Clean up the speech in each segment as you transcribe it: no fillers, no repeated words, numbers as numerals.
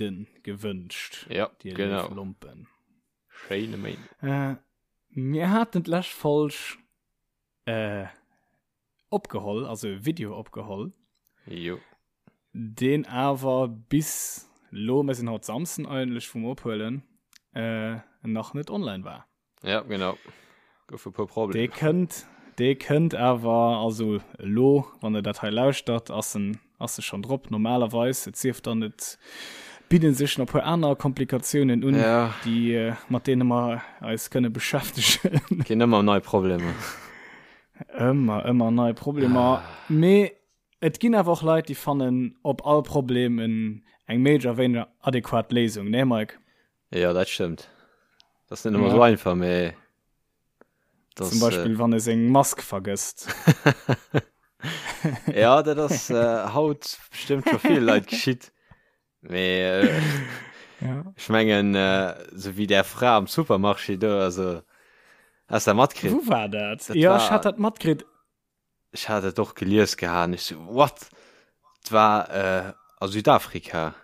Méinden gewënscht. Ja, dir genau. léif Lompen. Schéine Méinden. Äh, mir haten d'lescht Folg äh, opgeholl, also e Video opgeholl. Jo. Deen awer bis lo, mir sinn haut Samsden eigentlech vum Ophuelen, äh, nach net online war. Ja, genau. Gouf e puer Problemer. Dee kënnt, dee kënnt awer, also elo, wann der dat hei lauschtert, ass en, ass e schonn drop normalerweis. Et sief dann, et bidde sech nach e puer aner Komplikatiounen un, ja. déi, mat deene mer eis kënne beschäftegen. Ginn ëmmer nei Problemer. Ëmmer, ëmmer nei Problemer. Ah. Mee et ginn awer och Leit, déi fannen op all Problem en, eng méi oder wéineger adequat Léisung, nee Mike? Ja, dat stëmmt. Dat ass net ëmmer ja. sou einfach, mee das, Zum Beispill, äh, wann e seng Mask vergësst. ja, dat ass äh, haut bestëmmt scho vill Leit geschitt. Mee äh, ja. ech mengen, äh, sou wéi där Fra am Supermarché do, also hast du dat matkritt? Wou war dat? Dat ja, war, ech hat dat matkritt. Ech hat et och gelies gehat, ech so, what? Et war äh, a Südafrika.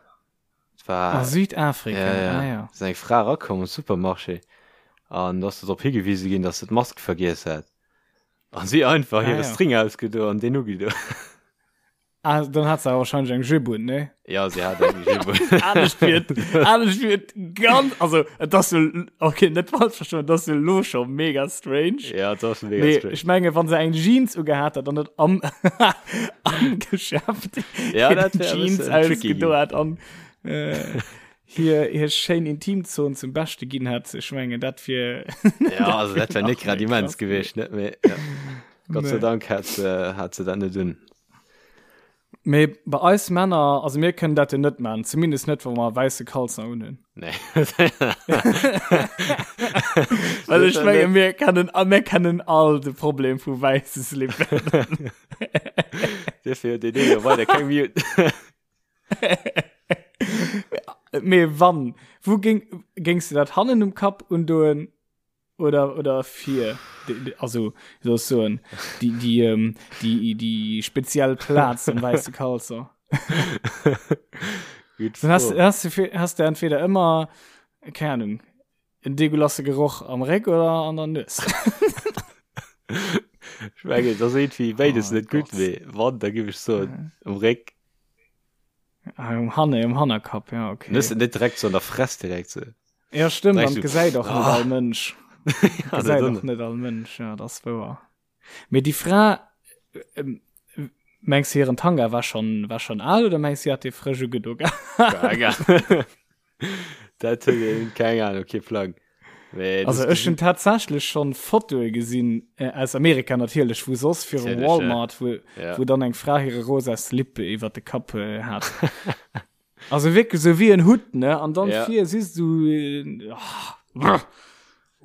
Et war, A Südafrika, ja, ja. ah ja. Ass eng Fra erakomm am Supermarché an do ass se drop higewise ginn, dass se d'Mask vergiess hat. An si einfach Ah hire ja. String ausgedo an deen ugedo. Ah, dann hat se awer wahrscheinlech eng Jupe un, ne? Ja, si hat eng Jupe un. Anescht wier et, anescht wier et ganz, also et ass jo, okay, net falsch verstoen, et ass jo lo scho mega strange. Ja, et ass mega Mee strange. ech menge wann se eng Jeans ugehat hat an net am, am Geschäft Ja, hir dat wär e Jeans bëssen tricky ausgedo ginn. hat an äh, hir, hir schéin Intimzon zum Beschte ginn hat, ech mengen dat wier Ja, also dat wär nach net grad méi immens krass gewiescht, net? Mee ja. Gott sei Nee. Dank hat se, hat se dat net un. Mee bei eis Männer, also mir kënnen dat jo net man, zumindest net, wa mer wäisse Kalzer unhunn. Nee. Well ech menge mir kennen, a mir kennen all de Problem vu wäisse Slippen. Dofir huet deen ee jo weider keng Mute. Mee wann, wou géing, géings de dat hannen um Kapp undoen Oder, oder fir, also, wie soll ich soen, die, die, ähm, die, die speziell Platz am weiße Kalzer. Gut Dann hast, Fro. hast, du, hast du entweder immer, keine Ahnung, en deguelasse Geroch am Réck oder an der Nues. Ich mengen, das ass irgendwie beides Oh net gutt, Gott. mee wann, da giff ech soen, um Réck. Ah, um Hanne, um Hannerkapp, ja, okay. Net, net direkt so an der Fress direkt so. Ja, stimmt, Direkt an so, gesäit och net ah. all Mënsch. Ja, Gesäit dat och net all Mënsch, ja, das wouer. Mee déi Fra, ähm, mengs du, hiren Tanga war schon, war schon al oder mengs du, si hat dee frësch ugedo gehat? Dat huet een, keng Ahnung, kee Plang. Mee Also das ech hunn tatsächlech schon Fotoe gesinn, äh, aus Amerika natierlech, wou soss virum Natierlech, ja. Walmart, wou, Ja. wou dann eng Fra hire rosa Slip iwwer de Kapp äh, hat. Also wierklech sou wéi en Hutt, ne? An dann Ja. vir siehst du äh, ah, brr.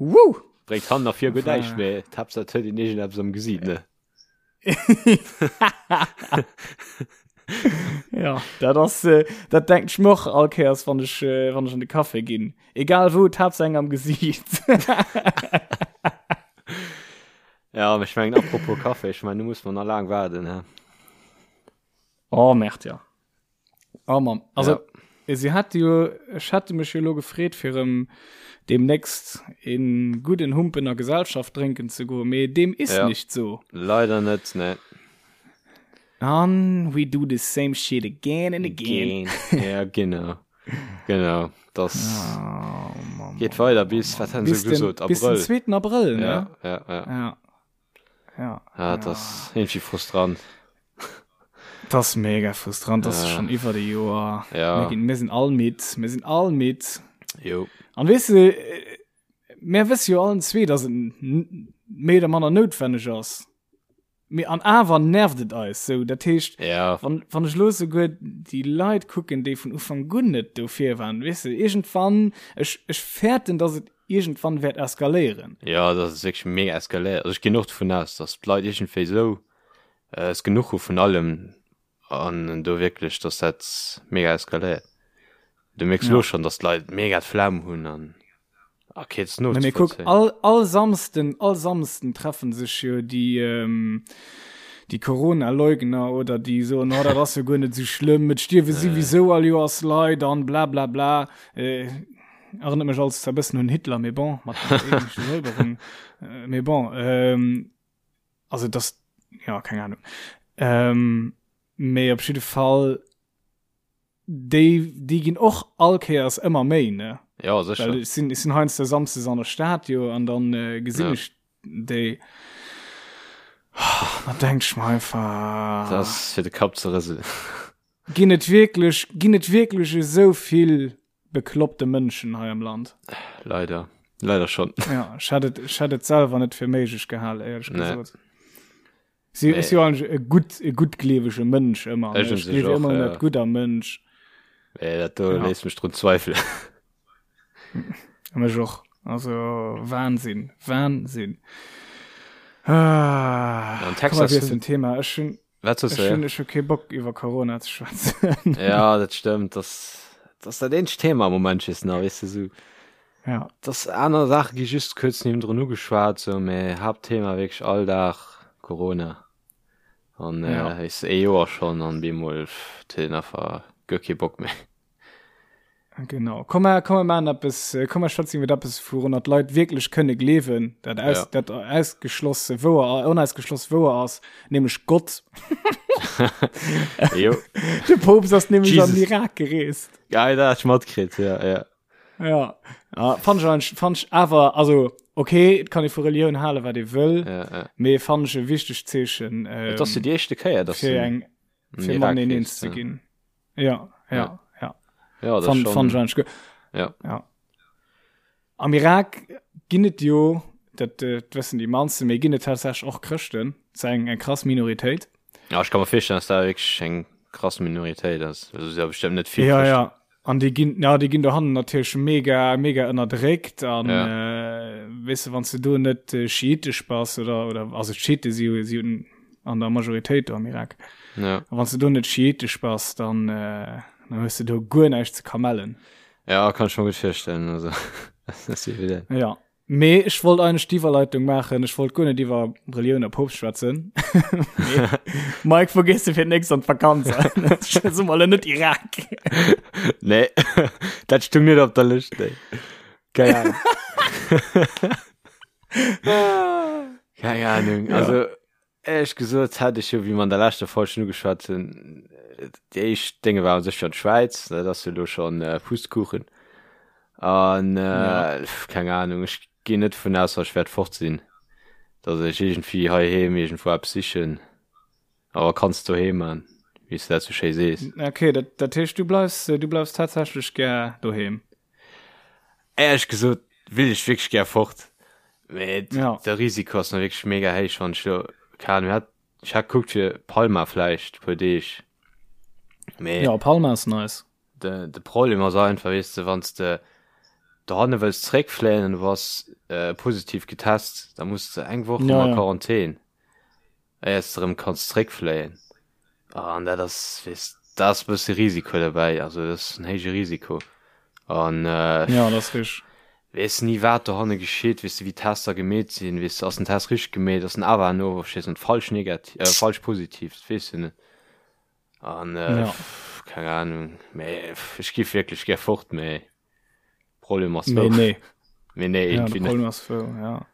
Woo! Bréngt hannen a vir guer Enfin. näischt, mee d'Haaptsaach et huet een iergendeppes am Gesiit, ne? Ja, dat ass äh, dat denkt ech mir och all Kéiers, wann ech äh, wann ech an de Café ginn. Egal wou, d'Haaptsaach eng am Gesiit. Ja, mee ech mengen, apropos Café, ech mengen, do muss mer nach laang waarden, he? Oh, Merde, ja. Oh Mann, also Ja. sie hat jo, ech hätte mech jo lo gefreet fir em demnächst en gudden Humpen a Gesellschaft drénken ze goen, mee deem is Ja. nicht so. Leider net, nee. An we do the same shit again and again. Again. Ja, genau. Genau. Das Oh, Mann, geet Mann, weider Mann, bis, Mann. wat han se Bis den, gesot, bis den Abrëll. 2. Abrëll, ne? Ja, ja, ja. Ja. Ja. Ah, das ass irgendwie frustrant. Das ass mega frustrant, das ass Ja. schon iwwer de Joer. Ja. Mir ginn, mir sinn all midd, mir sinn all midd. Jo. An weess de, äh, mir wësse jo allen zwee, dass et n- méi oder manner noutwenneg ass. Mee an awer nervt et eis sou. Dat heescht, Ja. wann, wann ech lo souguer déi Leit kucken, déi vun Ufank un net dofir waren, weess de, iergendwann, ech, ech fäerten, dass et iergendwann wäert eskaléieren. Ja, dass et wierklech mega eskaléiert. Also ech ginn och dovun aus, dass d'Leit iergendwéi sou äh, es genuch hu vun allem an do wierklech, dass dat mega eskaléiert. Du mierks Ja. lo schonn, dass d'Leit mega d'Flemm hunn an okay, et ass Na, mee kuck, nozevollzéien. all, all Samsden, all Samsden treffen sech jo déi, ähm, déi Corona-Leugner oder déi soen, oh, dat ass jo guer net esou schlëmm, et stierwe souwisou all Joers Leit an bla bla bla. Äh, erënnert mech alles zwar e bëssen un Hitler, mee bon, mat der ethnesche Säuberung. Äh, mee bon, ähm, also das, ja, keng Ahnung. Ähm, mee op jidde Fall, déi, déi ginn och all Kéiers ëmmer méi, ne? Ja, sécher. Well ech sinn, ech sinn heiansdo samsdes an der Stad jo an dann äh, gesinn ja. ech déi. Oh, da denk ich mir einfach. Das ass fir de Kapp ze rëselen. Ginn et wierklech, ginn et wierklech esou vill bekloppte Mënschen hei am Land? Leider. Leider schon. Ja, ech hätt et, ech hätt et selwer net fir méiglech gehal, éierlech nee. gesot. Si nee. ist jo eigentlich e gutt, e guttgleewege Mënsch ëmmer. Ech Ech gleewe ëmmer un dat Gutt am Mënsch. Nee, dat do ja. léisst mech drun zweifelen. Mech och. Also Wahnsinn, Wahnsinn. Ah, An Texas komm, wir Thema. Ech hun, Wat soss Ech hunn ech hu kee Bock iwwer Corona ze schwätzen. Ja, dat stëmmt. Das, das dat eenzegt Thema am Moment just nach, weess de sou. Ja. Das aner Saache gi just kuerz niewendrun ugeschwat, sou, mä Haaptthema wierklech all Dag Corona. An äh, Ja. weess de, ee Joer schonn an bemol pff, huet een einfach guer kee Bock méi. Genau. Komm mer, komm mer maachen eppes, äh, komm mer schwätzen iwwer eppes, wourunner d'Leit wierklech kënne gleewen, dat aus, Ja. dat ausgeschlosse wouer, onausgeschloss wouer ass, nämlech Gott. Jo. De Poopst ass nämlech an Jesus. den Irak gereest. Geil, dat hat ech matkritt, ja, ja. Ja, ja fand ich, eigentlich- fand ich awer, also, okay, et kann ee vu Relioun halen, wat ee wëll, ja, ja. mee fand ich e wichtegt Zeechen, ähm, Et ass jo déi éischte Kéier, dass fir en eng, an fir Irak mateneen reest, eens ze ja. ginn. Ja, ja, ja. Ja, das Fand, schon, fand ich eigentlich gut. Ja. ja. Am Irak ginn et jo, dat, äh, dat wëssen déi mannsten, mee ginn et tatsächlech och Chrëschten. Dat ass eng, eng krass Minoritéit. Ja, ich kann mir vorstellen, dass da wirklich eng krass Minoritéit ass. Also, ja bestimmt net vill Ja, Chrëschten. ja. An déi ginn, ja, déi ginn dohannen natierlech mega, mega ënnerdréckt an Ja. äh, weess de, wann s de do net äh, schiitesch bass oder, oder also d'Schiite si jo, si hunn an der Majoritéit do am Irak. Ja. A wann s de do net schiitesch bass, dann, äh, dann hues de do guer näischt ze kamellen. Ja, kann ich mir gut vorstellen. Also, das ist evident. Ja. Mee ech wollt eigentlech d'Iwwerleitung maachen, ech wollt guer net iwwer Relioun a Poopst schwätzen. Mee, Mike, wou gees de fir d'nächst an d'Vakanz? Soe mer elo net Irak. Nee, dat stung net op der Lëscht, nee. Keng Ahnung. Keng Ahnung. Also, Éierlech gesot hätt ech jo, wéi mer an der leschter Folg schon ugeschwat hunn, déi éischt Dénge waren sécher d'Schwäiz, dat ass jo elo schon Pustkuchen. An keng Ahnung, ech ginn net dovun aus, datt ech wäert fort sinn, datt ech iergendwéi heiheem iergendwou eppes sichen. Awer kanns doheem man, wéi s de dat sou schéi sees. Ok, dat dat heescht du bleifs, du bleifs tatsächlech gär doheem? Éierlech gesot will ech wierklech gär fort, mee Ja. de Risiko ass mir wierklech mega héich, wann ech lo, keng Ahnung, hat, ech hat gekuckt fir Palma vläicht e puer Deeg, mee Ja, Palma ass nice. de, de Problem ass einfach, weess de, wann s de dohanne wëlls zeréckfléien an du bass äh, positiv getest, da muss de eng Woch Ja, ëmmer ja. Quarantän. Éiers de rëm kanns zréckfléien. An dat ass, weess, da ass e bësse Risiko derbäi, also dat ass en héije Risiko. An Ja, dat ass richteg. weess ni wat dohanne geschitt, weess de wéi d'Tester gemeet sinn, weess de ass den Test richteg gemeet, ass en awer no weess net falsch negativ, äh, falsch positiv, dat weess de net. An Ja. keng Ahnung, mee ech giff wierklech gär fort, mee Problem ass Mee wou. nee. Mee nee, Ja, irgendwie de net. Problem ass wou, ja.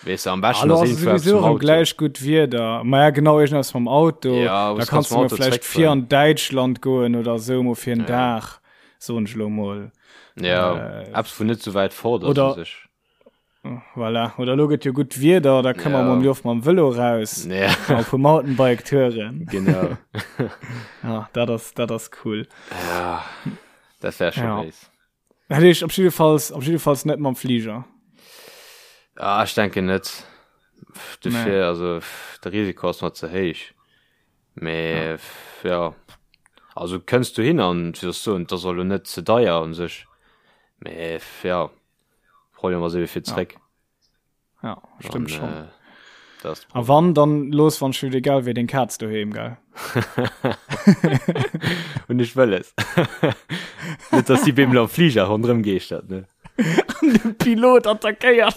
Weess de, am beschten Hallo, ass ass irgendwo eppes sowieso mam erëm Auto. gläich gutt Wieder. Ma ja, genau, irgendwas mam Auto. Ja, Da was kannst kannst du mam mal Auto vielleicht fir zréckfueren. an Däitschland goen oder sou, mol fir en Ja. Dag, soen ech lo mol. Ja, Äh, eppes wou net sou wäit fort ass oder u sech. Voilà. Oder lo gëtt jo gutt Wieder, da kënne mer Ja. mam Joff mam Vëlo raus. Ja. Mal vu Mountainbike touren. Genau. Ja, dat ass, dat ass cool. Ja, dat wär scho Ja. béis. Dat heescht op jiddefalls, op jiddefalls net mam Fliger. Ah, ech denken net. Dofir, Nee. also de Risiko ass mer ze héich. Mee ja, ja. Also kënns du hin an wéi soll ech soen, et ass och elo net ze deier un sech. Mee ja, Problem ass ebe fir zréck. Ja, stimmt An, schon. äh, das A wann, dann los wann schon egal wéi den Katz doheem, gell? Und ich wëlles. Net, dass die Bimmel am Flieger rondrëm geeschtert, ne? An de Pilot attackéiert.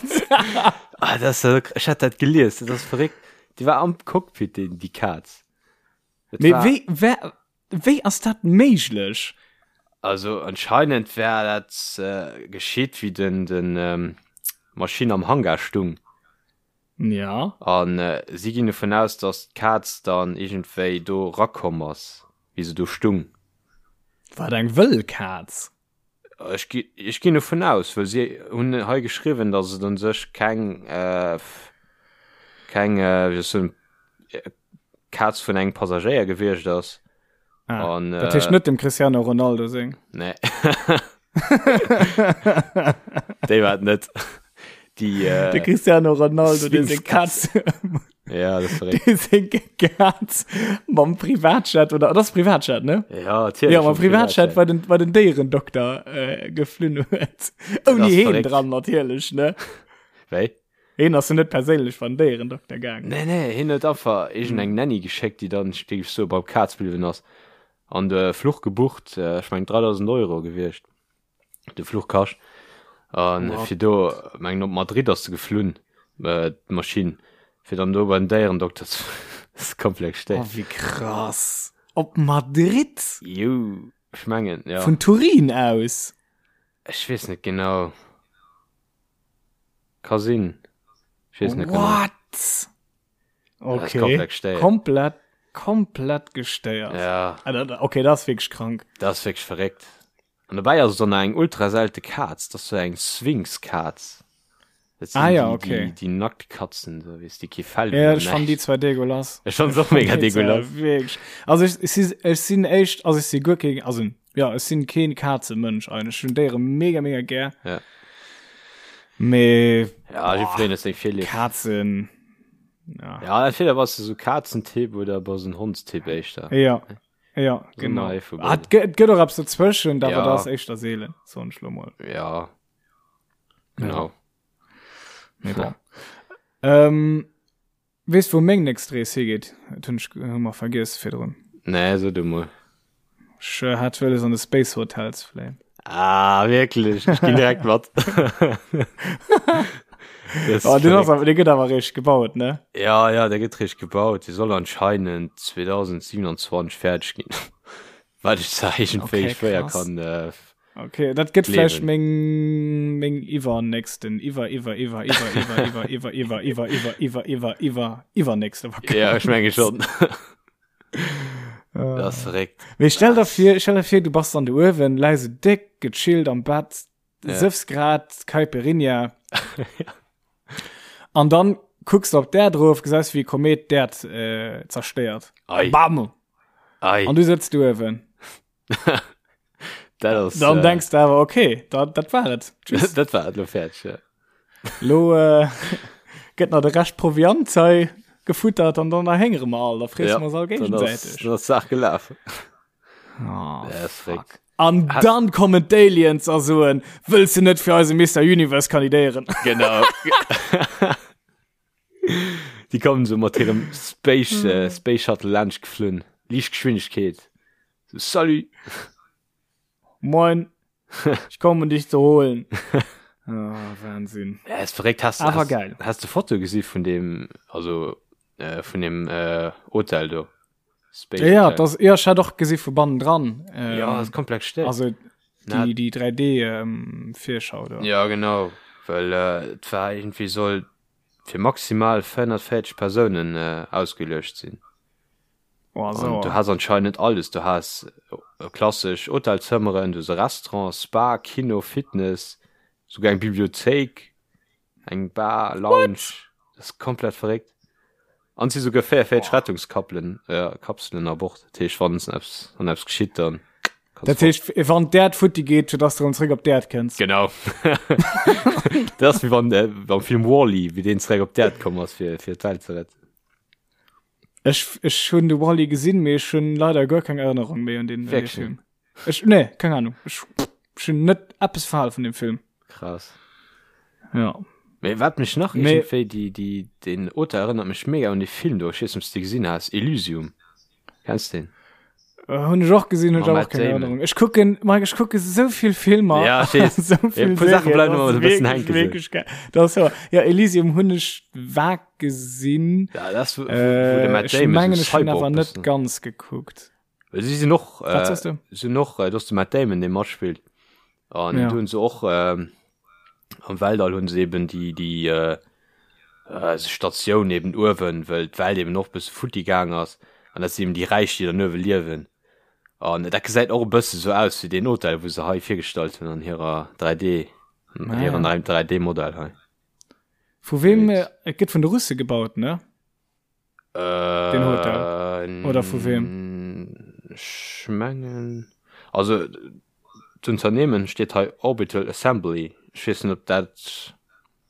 Ah, das, ich hat dat gelies, dat ass verréckt. Déi war am Cockpit, déi, déi Kaz. Dat Mee war, wéi, wer, wéi ass dat méiglech? Also anscheinend wär dat äh, geschitt, wéi den, den ähm, Maschinn am Hangar stung. Ja. An äh, si ginn dovun aus, dass d'Kaz dann iergendwéi do rakomm ass, wéi se do stung. War dat eng wëll Kaz? Ech gi, ech ginn dovun aus, well si hunn hei geschriwwen, dass et un sech keng, äh, keng, äh, wéi soll ech soen, Kaz vun engem Passagéier gewiescht ass. Ah, An, dat heescht äh, net dem Cristiano Ronaldo seng. Nee. Déi war et net. Déi, äh, De Cristiano Ronaldo, dee seng Kaz, Ja, das verréckt. dee seng Kaz mam Privatjet oder das Privatjet, ne? Ja, natierlech. Ja, mam Privatjet bei den, bei den Déierendokter äh, geflunn huet. Ouni heen dran natierlech, ne? Wéi? Heen ass jo net perséinlech beim Déierendokter gaangen. Nee, nee, hien huet einfach iergendeng Nanny geschéckt, déi dann, géif ech soen, beim Kaz bliwwen ass. An de Fluch gebucht, ech mengen 3.000 Euro gewiescht, de Fluch kascht. An fir do, mengen op Madrid ass se geflunn, d'Maschinn, fir dann do beim Déierendokter ze. Dat ass komplett gestéiert. Oh, wéi krass. Op Madrid? Jou, ech mengen, jo. Vun Turin aus? Ech weess net genau. Ka sinn. Ech weess net genau. What? Okay. Komplett gestéiert. Komplett, komplett gestéiert. Ja. Ah, okay, dat ass wierklech krank. Dat ass wierklech verréckt. An dobäi ass et dann nach eng ultra selte Kaz. Dat ass sou eng Sphinx-Kaz. Dat sinn ah, ja, déi, okay. déi, déi Nacktkatzen, so, weess, déi kee Fell hunn. Ja, ech fannen déi zwar dégueulasse. Ech fannen se och mega dégueulasse. Wierklech. Also ech, ech si, ech sinn éischt, also ech si guer keen, also ja, ech sinn keen Kazemënsch eigentlech. Ech hunn Déiere mega, mega gär. Ja. Mee, Ja, jiddwereen huet seng Virlieft. Kazen, ja. Ja, entweder bass de sou Kazentyp oder bass en Hondstyp éischter. Ja, ja, genau. Ah, et gëtt, et gëtt och eppes dozwëschent, awer Ja. dat ass éischter seelen, soen ech lo mol. Ja. Genau. Ja. Mee bon. Ähm, weess wou meng nächst Rees higeet? Dat hunn ech hu mer vergiess virdrun. Nee, so du mol. Ech äh, hat wëlles an de Space Hotel ze fléien. Ah, wierklech? Ech ginn direkt mat. Das oh, den ass awer, dee gëtt awer réischt gebaut, ne? Ja, ja, der gëtt réischt gebaut. Dee soll anscheinend 2027 fäerdeg ginn. Wat ech zwar iergendwéi Okay, schwéier krass. kann äh, Okay, dat gëtt vläicht gleewen. meng meng iwwernächsten iwwer iwwer iwwer iwwer iwwer iwwer iwwer iwwer iwwer iwwer iwwer iwwer iwwer iwwernächste Ja, ech menge Vakanz. schon. Dat ass verréckt. Mee stell der vir, stell der vir, du bass dann do uewen, läis esou déck gechillt am Bett, Ja. sëffs grad Caipirinha an dann kucks de op d'Äerd erof, gesäis wéi e Komet d'Äerd äh, zerstéiert. Ei. Bam! Ei. An du sëtz do uewen. Dat ass, Dann äh, denkst du awer, okay, dat, dat war et. Tschüss. Dat war et, lo fäerdeg, ja. Lo äh, gëtt nach de Rescht Proviant hei gefuttert an dann erhéngere mer all, da fresse Ja, mer uns all dann ass, géigesäiteg. dann ass d'Saach gelaf. Oh, Ja, ist fuck. verréckt. An Hast- dann kommen d'Aliens a soen, wëlls du net fir eise Mister Universe kandidéieren? Genau. Déi kommen so mat hirem Space, äh, Space Shuttle laanscht geflunn. Liichtgeschwindegkeet. So, salut! Moin, ich komme um dich zu holen. Ah, Wahnsinn. Ja, ist verréckt. Hast, Awer hast, geil. Hast du Foto gesi vun dem, also, äh, vun dem äh, Hotel do? Space Ja, ja, das, ja, ich hat och gesi vu bannen dran. Ähm, ja, das ist komplett still. Also die, die 3D ähm, Virschau da. Ja, genau. Well äh, et war irgendwie soll fir maximal 440 Persounen äh, ausgeluecht sinn. Oh, so. An du has anscheinend alles. Du has äh, klassesch Hotelzëmmeren, du has e Restaurant, Spa, Kino, Fitness, souguer eng Bibliothéik, eng Bar, Lounge. Das ist komplett verréckt. An si souguer 44 Rettungskappelen, äh, Kapselen a Bord. Dat heescht, wann eppes, wann eppes geschitt, dann kannst Dat heescht, wann d'Äerd futti geet, fir dass du erëm zréck op d'Äerd kënns. Genau. Dat ass wéi wann, äh, beim Film Wall-E, wéi deen zréck op d'Äerd komm ass, fir, fir d'Welt ze retten. Ech, ech hunn de Wall-E gesinn, mee ech hunn leider guer keng Erënnerung méi un deen, un dee Wierklech? Film. Ech, nee, keng Ahnung. Ech, ech hunn net eppes verhal vun dem Film. Krass. Ja. Mee wat mech nach Mee- iergendwéi, déi, déi, den Auteur erënnert mech mega un dee Film do, ech weess net, ob s de gesinn has, Elysium. Kenns de deen? Äh, hunn ech och gesinn, hunn ech Mam awer Matt och keng Damon. Erinnerung. Ech kucken, Mike, ech kucke sou vill Filmer. Ja, ech weess. sou vill E puer Saache Serien, bleiwen das ëmmer ass e bëssen wierklech, hänken, sou. wierklech geil. Das ass wahr. Ja, Elysium hunn ech vag gesinn. Ja, dat ass, wou, wou de Äh, Matt ech Damon sou mengen, ech hunn Cyborg awer net bëssen. ganz gekuckt. Well si sinn och, Wat äh, soss du? sinn och, äh, do ass de Matt Damon, dee matspillt. An Ja. do hunn se och, ähm, am Weltall hunn se eben déi, déi, äh, äh, Statioun eben uewen, well d'Welt eben och bësse futti gaang ass. An dat sinn eben déi Räich, déi dann uewe liewen. An dat gesäit och e bësse sou aus wéi deen Hotel, wou se hei virgestallt hunn an hirer 3D, Ah, hiren ja. 3D-Modell hei. Vu wem, äh, et gëtt vun de Russe gebaut, ne? Äh, Den Hotel. Oder vu wem? Ech mengen, also d'Unternehmen steet hei Orbital Assembly. Ech weess net, ob dat,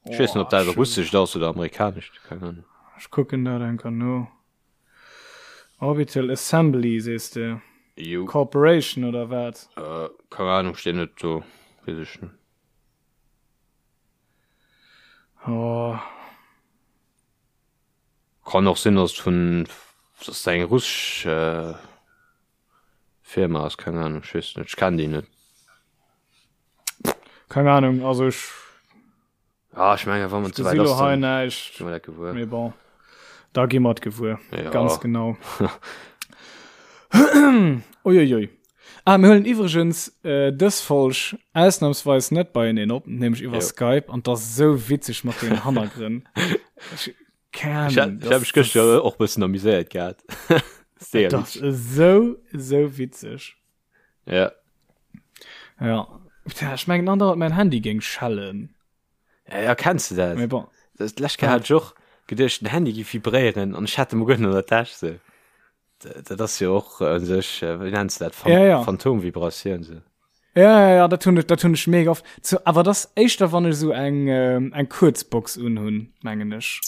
ech weess net, ob dat russescht ass oder amerikanescht, keng Ahnung. Ech kucken dat enker no. Orbital Assembly sees de? Jo. Corporation oder wat? Äh, keng Ahnung, steet net do, weess ech net. Oh. Kann och sinn, dass et vun, dass et eng russesch Firma ass, keng Ahnung, ech weess net, ech kennen déi net. Keng Ahnung, also ech. Ah, ech mengen, wann et Ech souwäit gesi lo ass, hei dann näischt. gi mer dat gewuer. Mee bon, da gi mer et gewuer. Ja. Ganz genau. Uiuiui. Ah, mir huelen iwwregens äh, dës Folg ausnahmsweis net beieneen op, nämlech iwwer Jo. Skype, an 't ass esou witzeg mat den Hannergrënn. Ech, keng Ech Ahnung, hat, ech hat mech gëschter och bëssen amuséiert gehat. Sehr Das witzeg. ass esou, esou witzeg. Ja. Ja. Tja, ech mengen andauernd mäin Handy géing schellen. Ja, ja, kenns du dat? Mee bon. Das d'lescht Kéier hat ech och geduecht, den Handy géif vibréieren an ech hat e mol guer net an der Täsch sou. Dat ass jo och u sech, wéi nenns de dat, Ja, ja. Phantomvibratioun sou. Ja, ja, ja, dat hunn ech, dat hunn ech mega oft. Zu, awer dat ass éischter, wann ech esou eng, eng Kuerzbox unhunn, mengen ech.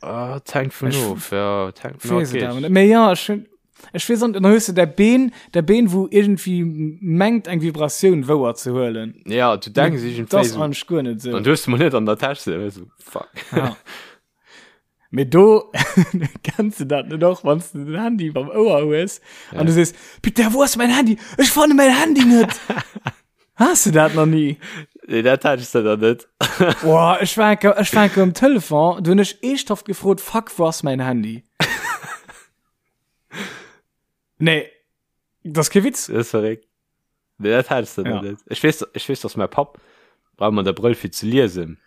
Ah, et hänkt vun Ech of, ja, et hänkt vun weess et of. awer net. Mee ja, ech hunn, ech weess an, dann hues de däi Been, däi Been, wou iergendwéi mengt, eng Vibratioun wouer ze huelen. Ja, du denks Mee iergendwéi dat ass sou. eigentlech guer net sou. An du hues de mol net an der Täsch sou, sou, fuck. Ja. Mee do kenns du dat net och, wann du den Handy beim Ouer hues an du sees, Putain, wou ass mäin Handy? Ech fanne mäin Handy net! Has du dat nach ni? Nee, dat hat ech dann net. Boah, ech war enke, ech war enke um Telefon, du hunn ech eeschthaft gefrot, fuck, wou ass mäin Handy? Nee, dat ass kee Witz. Dat ass verréckt. Nee, dat hat ech dann Ja. net. Ech weess, ech weess, dass mäi Papp brauch ëmmer de Brëll fir ze liesen.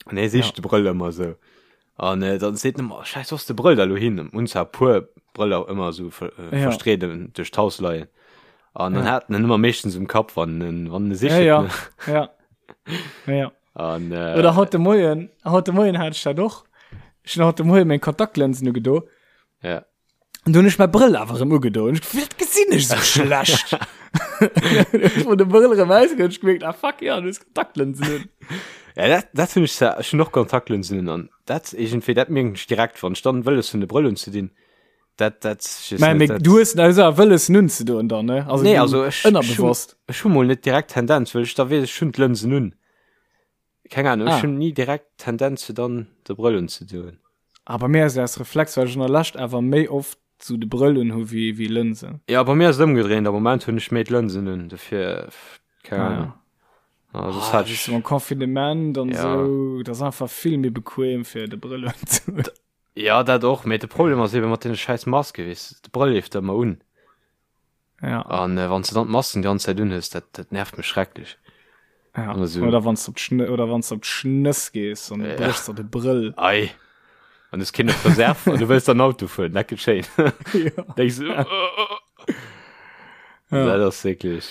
An hie sicht Ja. de Brëll ëmmer sou. An äh, dann seet en ëmmer, oh, Scheiß, wo ass de Brëll da lo hin? Hunn zwar e puer Brëller ëmmer sou ver, äh, Ja. verstreet duerch d'Haus leien. An dann Ja. hat en en ëmmer meeschtens um Kapp, wann en, wann en e Ja, sicht. ja. Ne? Ja. Ja, ja. An, äh, Oder haut de Moien, haut de Moien hat ech dat och. Ech hunn haut de Moien meng Kontaktlinsen ugedo. Ja. An du hunn ech mäi Brëll awer erëm ugedo. Ech, wat gesinn ech sou schlecht? Ech hunn de Brëll erëm ausgeholl, ech gemierkt, ah fuck, ja, du hues Kontaktlinsen un. Ja, dat, dat hunn ech zwar, ech hunn och Kontaktlinsen un an dat iergendwéi, dat mierken ech direkt, wann ech dann wëlles hunn de Brëll unzedinn, dat, dat, ech weess Mä, net, mee dat. du hues also awer wëlles en unzedoen dann, ne? Also Nee, du, also ech, ech hunn, ënnerbewosst. ech hu mol net direkt Tendenz, well ech da weess, ech hunn d'Lënsen un. Keng Ahnung, ech Ah. hunn ni direkt Tendenz fir dann de Brëll unzedoen. Ah, bei mir ass et aus Reflex, well ech an der Lescht awer méi oft sou de Brëll un hu wéi, wéi Lënsen. Ja, bei mir ass et ëmgedréint, am Moment hunn ech méi d'Lënsen un, dofir, keng Ah, Ahnung. ja. Ah, soss Ah, hat weess ech, du, mam Confinement an Ja. sou, dat ass einfach vill méi bequem fir de Brëll unzedoen. ja, dat och, mee de Problem ass eben mat deene schäiss Maske, weess de, de Brëll leeft der ëmmer un. Ja. An äh, wann du dann d'Masken die ganze Zeit unhues, dat, dat nervt mech schrecklech. Ja. Also- Oder wann du op d'Schn oder wann du op d'Schnëss gees an du Ja. bréchs der de Brëll. Ei. An du hues keen op Reserve an du wëlls dann Auto fueren, dat gëtt schéin. ja. Denkst du, oh, oh, oh. Ja. Dat ass wierklech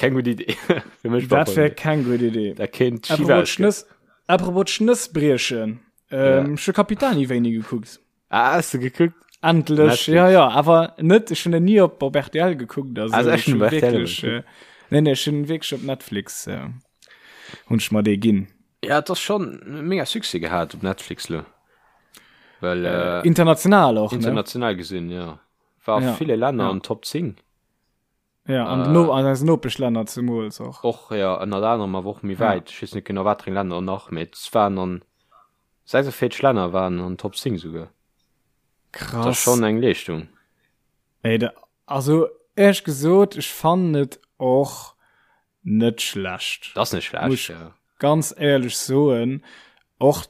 keng gutt Idee. Fir mech Dat wär keng gutt Idee. Dat kéint schief Apropos ausgoen. Schnëss, apropos Schnëss briechen. Ähm, Ja. Ech hu Capitani wéini gekuckt. Ah, hast du gekuckt? Endlech, Netflix. ja, ja, awer net, ech hunn en ni op, op RTL gekuckt, also, Also ech ech hunn hunn op RTL wierklech, äh, nee, nee, ech hunn wierklech op Netflix, äh, hunn ech mer dee ginn. Ja, et ass schon mega Succès gehat op Netflix lo. Well, äh, International och, ne? international gesinn, ja. War a Ja, ville Länner ja. an Top 10. Ja, an Äh, den No an eisen Nopeschlänner zemools och. Och, ja, ënnert anerem, awer och méi Ja. wäit. Ech weess net genau, wat fir eng Länner nach, mee et waren an 46 Länner waren an Top 10 souguer. Dat ass Krass. schon eng Leeschtung. Ey, da, also. éierlech gesot, ech fannen et och net schlecht. Dat ass net schlecht, Muss ja. ganz éierlech soen, och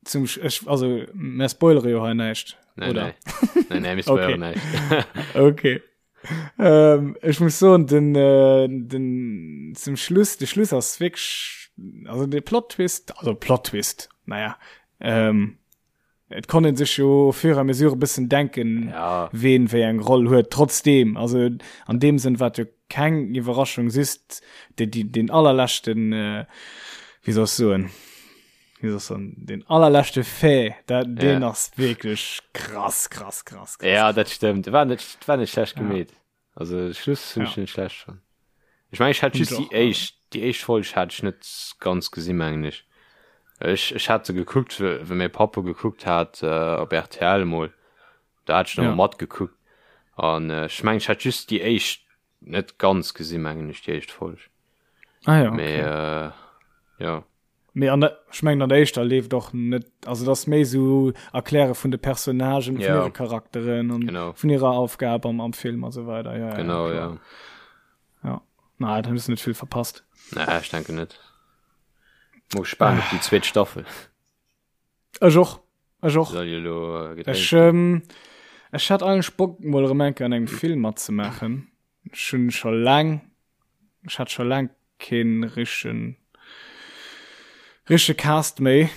zum Sch ech, also mer spoilere jo hei näischt, Nee, oder? nee. Nee, nee, mir spoileren Okay. näischt. Okay. Ähm, ech muss soen, den, äh, den, zum Schluss, de Schluss ass wierklech, also de Plot-Twist, also Plot-Twist, naja, ähm, Et konnt een sech jo au fur et à mesure e bëssen denken, ja. ween wéi eng Roll huet. Trotzdem, also an deem Sënn war et jo keng Iwwerraschung, just de, die, den allerleschten, äh, wéi soll ech soen, wéi soll ech soen, den allerleschte Fait, dat, deen Ja. ass wierklech krass, krass, krass, krass. Ja, dat stëmmt. War net, war net schlecht Ja. gemeet. Also Schluss hunn Ja. ech net schlecht fonnt. Ech mengen ech hat Hunn just ech déi och. éischt déi éischt Folg hat ech net ganz gesinn mengen ech. Ech ech hat se gekuckt wéi mäi Papp e gekuckt hat op rtl emol. Da hat ech nach Ja. emol matgekuckt an ech mengen ech hat just déi éischt net ganz gesinn mengen ech déi éischt Folg. Ah ja, Mee okay. äh, jo. Mee an der, ech mengen an der éischter leeft och net, also dat ass méi sou Erkläre vun de Personnagen, vun Ja. hire Charakteren an Genau. vun hirer Aufgab am, am Film a sou weider. Ja, ja, Genau, klar. ja. Ja. Na, da hues du net vill verpasst. Nee, ech denken net. Mol gespaant op déi zweet Staffel. Ech och. Ech och. Soll jo elo äh, gedréint Ech, ginn. ähm, ech hat eigentlech Bock mol erëm eng Kéier an engem Film matzemaachen. Ech hunn scho laang, ech hat scho laang keen richtegen, richtege Cast méi.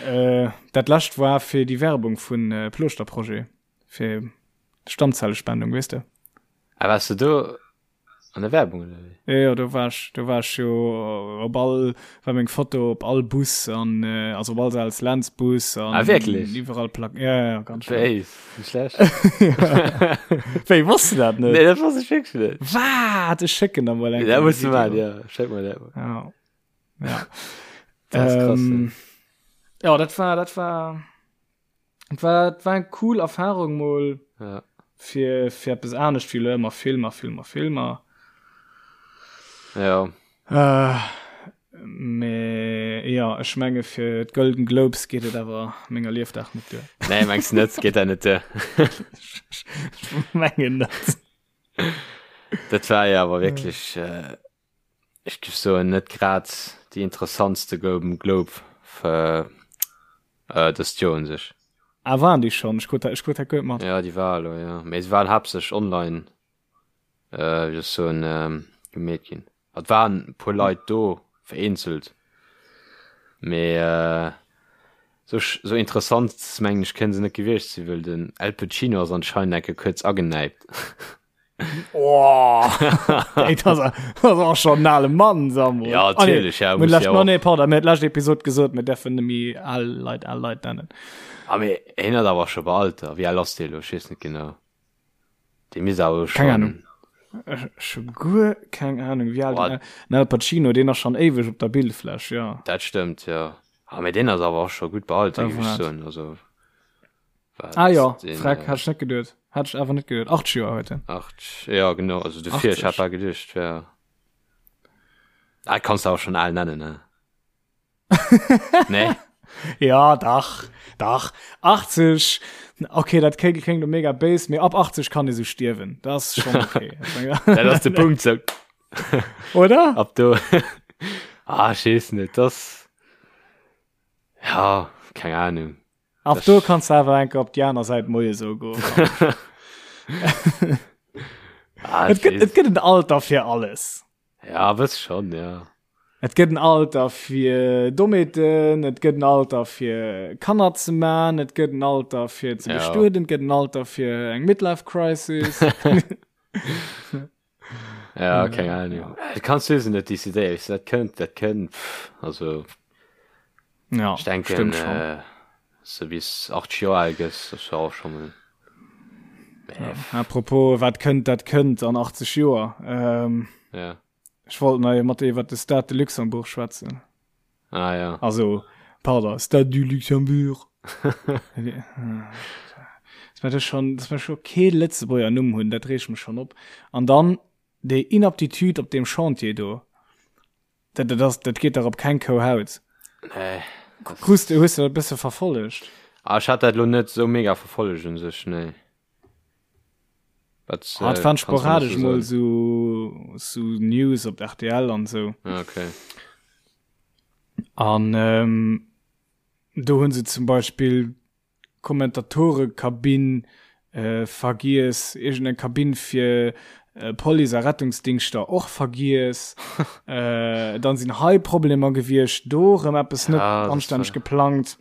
äh, dat lescht war fir déi Werbung vun äh, Plooschter-Projet, fir Stammzellespendung, weess de? Ah, wars du do An der Werbung oder wéi? Jo, jo, do war ech, do war ech jo op all, war meng Foto op all Bus an, also op all Sales Lentz Bus an. Ah, wierklech? Iwwerall Plak, ja, ja, ganz schnell. Wéi, nicht schlecht. Wéi, wosst du dat net? Nee, dat wosst ech wierklech net. Wat? Ech schécken der mol eng Dat Kéier muss du Video. maachen, ja. Schéck mer dat mol. Ja. Ja. Dat ass krass, Ähm, ja, dat war, dat war. Et war, et war eng cool Erfahrung mol ja. fir, fir eppes anescht wéi lo ëmmer Filmer, Filmer, Filmer. Ja. Äh, mee ja, ech menge fir d'Golden Globes geet et awer menger Liefdag net duer. Nee, mengs du net, geet dat net duer. Ech mengen net. Dat war jo awer wierklech. Äh, ech géif soen, net grad déi interessantste Golden Globe fir äh, dëst Joer un sech. Ah, waren déi schonn? Ech krut dat, ech krut dat guer net mat. Ja, déi war elo, ja. Mee se waren haaptsächlech online, äh, wéi soll ech soen, ähm, gemeet ginn. Et waren e puer Leit do, vereenzelt, mee äh, sou, sou interessant, mengen ech, kënne se net gewiescht sinn, well den Al Pacino ass anscheinend eng Kéier kuerz agenäipt. Oh, ey, das, das ass schon en ale Mann, Samuel. Ja, natierlech, ja, Ah, nee, muss lescht, ja no, och. nee, pardon, mir lescht Episod gesot, mir dürfen net méi al Leit al Leit nennen. Ah, mee hien ass awer scho bei Alter. Wéi al ass dee elo? Ech weess net genau. Dee misst awer Keng schon. Ahnung. Ech ech hu guer keng Ahnung, wéi al Boah. den den Al Pacino, deen ass schon éiweg op der Bildfläch, ja. Dat stëmmt, ja. Ah, mee deen ass awer och scho gutt bei Alter, Da géif ech waart. soen. Also. Ah ja, Freck, hat ech net geduet. Hat ech awer net geduet. 80 Joer huet en. 80, ja genau, also dofir, ech hat 80. bal geduecht, wär. Ah, kanns du awer schon al nennen, ne? Nee? Ja, dach, dach. 80, okay, dat kléngt kléngt lo mega béis, mee ab 80 kann ee sou stierwen. Dat ass schon okay. Dat ass de Punkt, sou. Oder? Ab do. Ah, ech weess net, das. Ja, keng Ahnung. Ab do kanns du awer enke op déi aner Säit Moie sou goen. Ah, Et gëtt, et gëtt en Alter fir alles. Ja, wëss schon, ja. Et gëtt en Alter fir Dommheeten, et gëtt en Alter fir Kanner ze man, et gëtt en Alter fir ze Ja. bestueden, et gëtt en Alter fir eng Midlife Crisis. Ja, keng Ahnung. Du kannst du net décidéieren, weißt du, dat kënnt, dat kënnt, pff, also Ja, ich denken, stimmt schon. äh, so bis 80 Joer al gëss, das war auch schon mal. Ja. Apropos, wat kënnt, dat kënnt an 80 Joer. Ähm, Ja. ech wollt nach mat dir iwwer de Stade de Luxembourg schwätzen. Ah ja. Also, pardon, Stade du Luxembourg. Dass mer das schon, dass mer scho kee Lëtzebuerger Numm hunn, dat reegt mech schon op. An dann déi Inaptitude op deem Chantier do. Dat, dat ass, dat geet dach op keng Kou Haut. Nee. Krus de, hues de dat e bësse verfollegt? Ah, ech hat dat lo net sou mega verfollegt un sech, nee. Wat, Ah, et äh, waren kannst du mir sporadesch so mol soen? sou, sou News op RTL an sou. Ah, okay. An ähm, do hunn se zum Beispill Kommentatorekabinn äh, vergiess, iergendeng Kabinn fir äh, Police a Rettungsdingschter och vergiess. äh, dann sinn hei Problemer gewiescht, do rëm eppes net Ja, das anstänneg war- geplangt.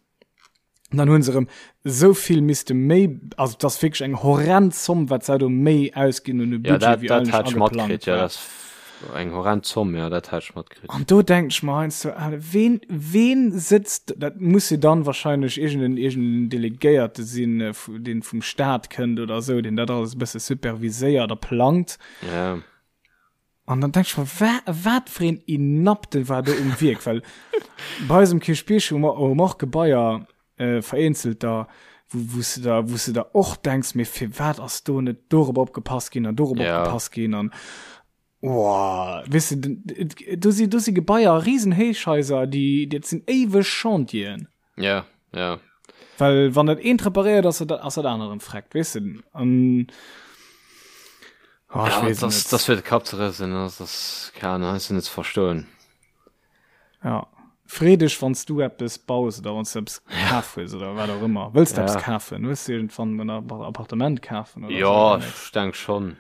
Und dann hunn se erëm esou vill misste méi, also dat ass wierklech eng horrend Zomm, wat se do méi ausginn hunn u Ja, Budget, dat, wéi dat eigentlech hat ech ageplangt matkritt, ja, war. dat ass eng horrend Zomm, ja, dat hat ech matkritt. An do denken ech mer heiansdo, ah, ween, ween sëtzt, dat muss jo dann wahrscheinlech iergenden, iergenden Delegéierte sinn, äh, deen vum Staat kënnt oder esou, deen dat alles e bësse superviséiert a plangt. Ja. An dann denk ech mer, wa, wat fir een Inapte war do um Wierk, well bei eis um Kierchbierg hu mer, hu mer och Gebaier, äh, vereenzelter, wou, wou s de der, wou s de der och denks, mee firwat ass do net dorop opgepasst ginn an dorop Ja. opgepasst ginn an Woah, weess de, den, do si, do si Gebaier, riesen Héichhaiser, déi, dat sinn éiweg Chantieren. Ja, ja. Well wann dat eent reparéiert ass, ass dat anert erëm freckt, weess de. An oh, ech Ja, weess das, net. das fir de Kapp ze rëselen, das ass, keine Ahnung, heiansdo net ze verstoen. Ja. Free dech, wann s du eppes baus oder wann s du eppes kaf hues oder wat och ëmmer. Wëlls du eppes Ja. kafen? Wëlls du iergendwann en Appartement kafen oder Ja, sou demnächst? ech denk schonn.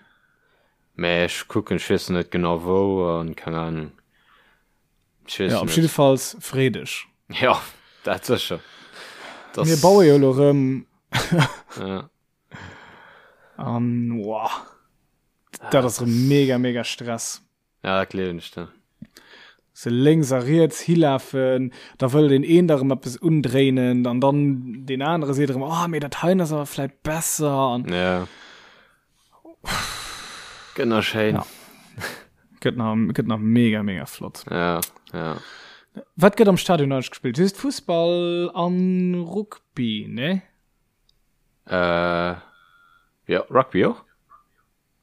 Mä ech kucken, ech weess net genau wou an keng Ahnung. Ech weess Ja, op net. jiddefalls free dech. Ja, dat sécher. Das, Mir baue jo elo rëm Ja. an wow, dat ass rëm mega, mega Stress. Ja, dat gleewen ech der. Se lénks a riets hilafen, da wëll deen een der erëm eppes undréinen an dann deen anere seet erëm, oh, mee dat heien ass awer vläit besser an Ja. Gëtt nach schéin. Ja. Gëtt nach, gëtt nach mega, mega flott. Ja, ja. Wat gëtt am Stadion eigentlech gespillt? Just Fussball an Rugby, ne? Äh, ja, Rugby och?